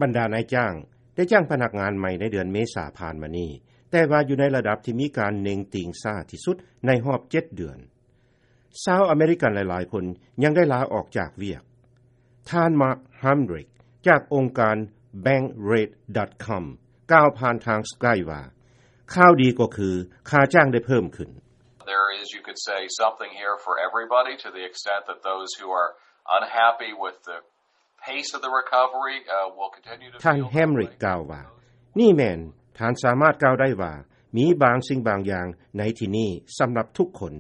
ບັນດານາຍຈ້າງໄດ້ຈ້າງພະນັກງານໃໝ່ໃນເດືອນເມສາຜ່ານມານີ້, ແຕ່ວ່າຢູ່ໃນລະດັບທີ່ມີການເໜັງຕີງຊ້າທີ່ສຸດໃນຮອບເຈັດເດືອນ. ຊາວອາເມລິກັນຫຼາຍໆຄົນຍັງໄດ້ລາອອກຈາກວຽກ. ທ່ານ Mark Hamrick ຈາກອົງການ Bankrate ການ Bankrate ການ Skype ວ່າ, ຂ່າວດີກໍຄືຄ່າຈ້າງໄດ້ເພີ່ມຂຶ້ນ. There is, you could say, something here for everybody to the extent that those who are unhappy with the pace of the recovery, uh, will continue to feel that way. ທ່ານ Hamrick ກ່າວວ່າ, ນີ້ແມ່ນ, ທ່ານສາມາດກ່າວໄດ້ວ່າ ມີບາງສິ່ງບາງຢ່າງໃນທີ່ນີ້ສຳລັບທຸກຄົນ.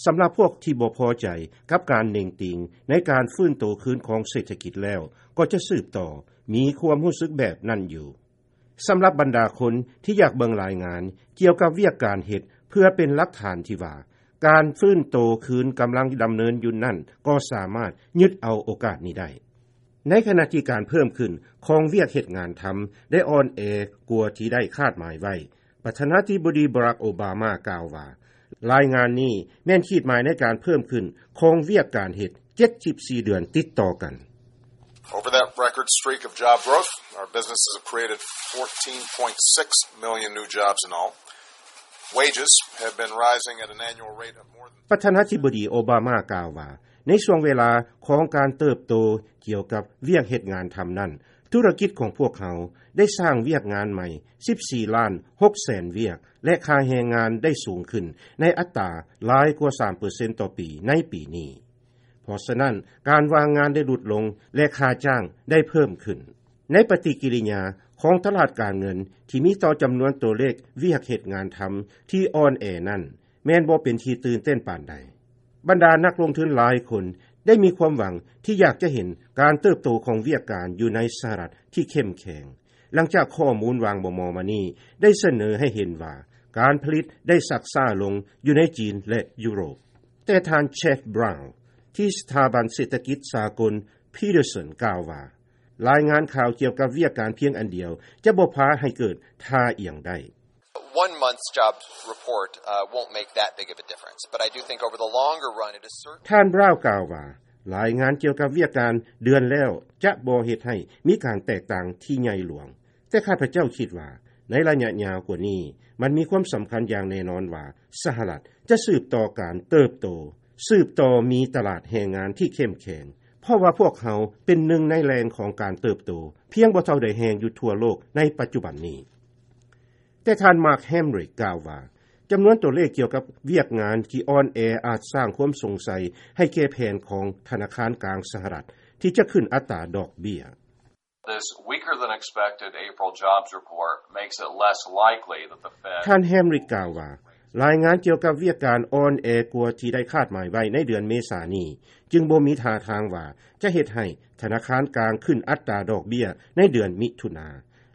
ສຳລັບພວກທີ່ບໍ່ພໍໃຈກັບການເໜັງຕີງໃນການຟື້ນໂຕຄືນຂອງເສດຖະກິດແລ້ວ, ກໍຈະສືບຕໍ່ມີຄວາມຮູ້ສຶກແບບນັ້ນຢູ່. ສຳລັບບັນດາຄົນທີ່ຢາກເບິ່ງລາຍງານກ່ຽວກັບວຽກການເຮັດເພື່ອເປັນຫຼັກຖານທີ່ວ່າ ການຟື້ນໂຕຄືນກຳລັງດຳເນີນຢູ່ນັ້ນ ກໍສາມາດຍຶດເອົາໂອກາດນີ້ໄດ້. ໃນຂະນະທີ່ການເພີ່ມຂຶ້ນຂອງວຽກເຮັດງານທຳໄດ້ອ່ອນແອກວ່າທີ່ໄດ້ຄາດໝາຍໄວ້, ປະທານາທິບໍດີ Barack Obama ກ່າວວ່າ, ລາຍງານນີ້ແມ່ນຂີດໝາຍໃນການເພີ່ມຂຶ້ນຂອງວຽກການເຮັດເຈັດສິບສີ່ເດືອນຕິດຕໍ່ກັນ. Over that record streak of job growth, our businesses have created fourteen point six million new jobs in all. Wages have been rising at an annual rate of more than ປະທານາທິບໍດີໂອບາມາກ່າວວ່າ, ໃນຊ່ວງເວລາຂອງການເຕີບໂຕກ່ຽວກັບວຽກເຮັດງານທຳນັ້ນ, ທຸລະກິດຂອງພວກເຮົາໄດ້ສ້າງວຽກງານໃໝ່ສິບສີ່ລ້ານຫົກແສນວຽກ ແລະ ຄ່າແຮງງານໄດ້ສູງຂຶ້ນໃນອັດຕາຫຼາຍກວ່າສາມເປີເຊັນຕໍ່ປີໃນປີນີ້. ເພາະສະນັ້ນ, ການວ່າງງານໄດ້ຫຼຸດລົງ ແລະ ຄ່າຈ້າງໄດ້ເພີ່ມຂຶ້ນ. ໃນປະຕິກິລິຍາຂອງຕະຫຼາດການເງິນທີ່ມີຕໍ່ຈຳນວນຕົວເລກວຽກເຮັດງານທຳທີ່ອ່ອນແອນັ້ນ, ແມ່ນບໍ່ເປັນທີ່ຕື່ນເຕັ້ນປານໃດ. ບັນດານັກລົງທຶນຫຼາຍຄົນໄດ້ມີຄວາມຫວັງທີ່ຢາກຈະເຫັນການເຕີບໂຕຂອງວຽກການຢູ່ໃນສະຫະລັດທີ່ເຂັ້ມແຂງ, ຫຼັງຈາກຂໍ້ມູນຫວ່າງບໍ່ມໍ່ມານີ້ໄດ້ສະເໜີໃຫ້ເຫັນວ່າ ການຜະລິດໄດ້ຊັກຊ້າລົງຢູ່ໃນຈີນ ແລະ ຢູໂຣບ. ແຕ່ທ່ານ Jeff Brown ທີ່ສະຖາບັນເສດຖະກິດສາກົນ Peterson ກ່າວວ່າ, ລາຍງານຂ່າວກ່ຽວກັບວຽກການພຽງອັນດຽວຈະບໍ່ພາໃຫ້ເກີດທ່າອຽງໄດ້. One month's jobs report, uh, won't make that big of a difference, but I do think over the longer run, it is certain. ທ່ານ Brown ກ່າວວ່າ, ລາຍງານກ່ຽວກັບວຽກການເດືອນແລ້ວຈະບໍ່ເຮັດໃຫ້ມີການແຕກຕ່າງທີ່ໃຫຍ່ຫຼວງ, ແຕ່ຂ້າພະເຈົ້າຄິດວ່າ ໃນໄລຍະຍາວກວ່ານີ້, ມັນມີຄວາມສຳຄັນຢ່າງແນ່ນອນວ່າ ສະຫະລັດຈະສືບຕໍ່ການເຕີບໂຕ, ສືບຕໍ່ມີຕະຫຼາດແຮງງານທີ່ເຂັ້ມແຂງ, ເພາະວ່າພວກເຮົາເປັນໜຶ່ງໃນແຫຼ່ງຂອງການເຕີບໂຕ ພຽງບໍ່ເທົ່າໃດແຮງຢູ່ທົ່ວໂລກໃນປັດຈຸບັນນີ້. ແຕ່ທ່ານ Mark Hamrick ກ່າວວ່າ, ຈຳນວນຕົວເລກກ່ຽວກັບວຽກງານທີ່ອ່ອນແອອາດສ້າງຄວາມສົງໄສໃຫ້ແກ່ແຜນຂອງທະນາຄານກາງສະຫະລັດທີ່ຈະຂຶ້ນອັດຕາດອກເບ້ຍ. This weaker than expected April jobs report makes it less likely that the Fed ທ່ານ Hamrick ກ່າວວ່າ, ລາຍງານກ່ຽວກັບວຽກການອ່ອນແອກວ່າທີ່ໄດ້ຄາດໝາຍໄວ້ໃນເດືອນເມສານີ້ ຈຶ່ງບໍ່ມີທ່າທາງວ່າຈະເຮັດໃຫ້ທະນາຄານກາງຂຶ້ນອັດຕາດອກເບ້ຍໃນເດືອນມິຖຸນາ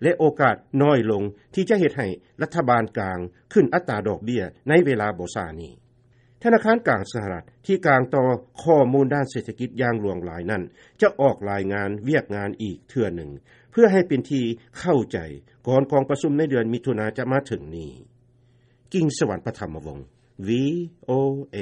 ແລະ ໂອກາດນ້ອຍລົງທີ່ຈະເຮັດໃຫ້ລັດຖະບານກາງຂຶ້ນອັດຕາດອກເບ້ຍໃນເວລາບໍ່ຊ້ານີ້. ທະນາຄານກາງສະຫະລັດທີ່ກາງຕໍ່ຂໍ້ມູນດ້ານເສດຖະກິດຢ່າງຫຼວງຫຼາຍນັ້ນ ຈະອອກລາຍງານວຽກງານອີກເທື່ອໜຶ່ງ ເພື່ອໃຫ້ເປັນທີ່ເຂົ້າໃຈກ່ອນກອງປະຊຸມໃນເດືອນມິຖຸນາຈະມາເຖິງນີ້. ກິງສະຫວັນ ປະຖຳມະວົງ ວີໂອເອ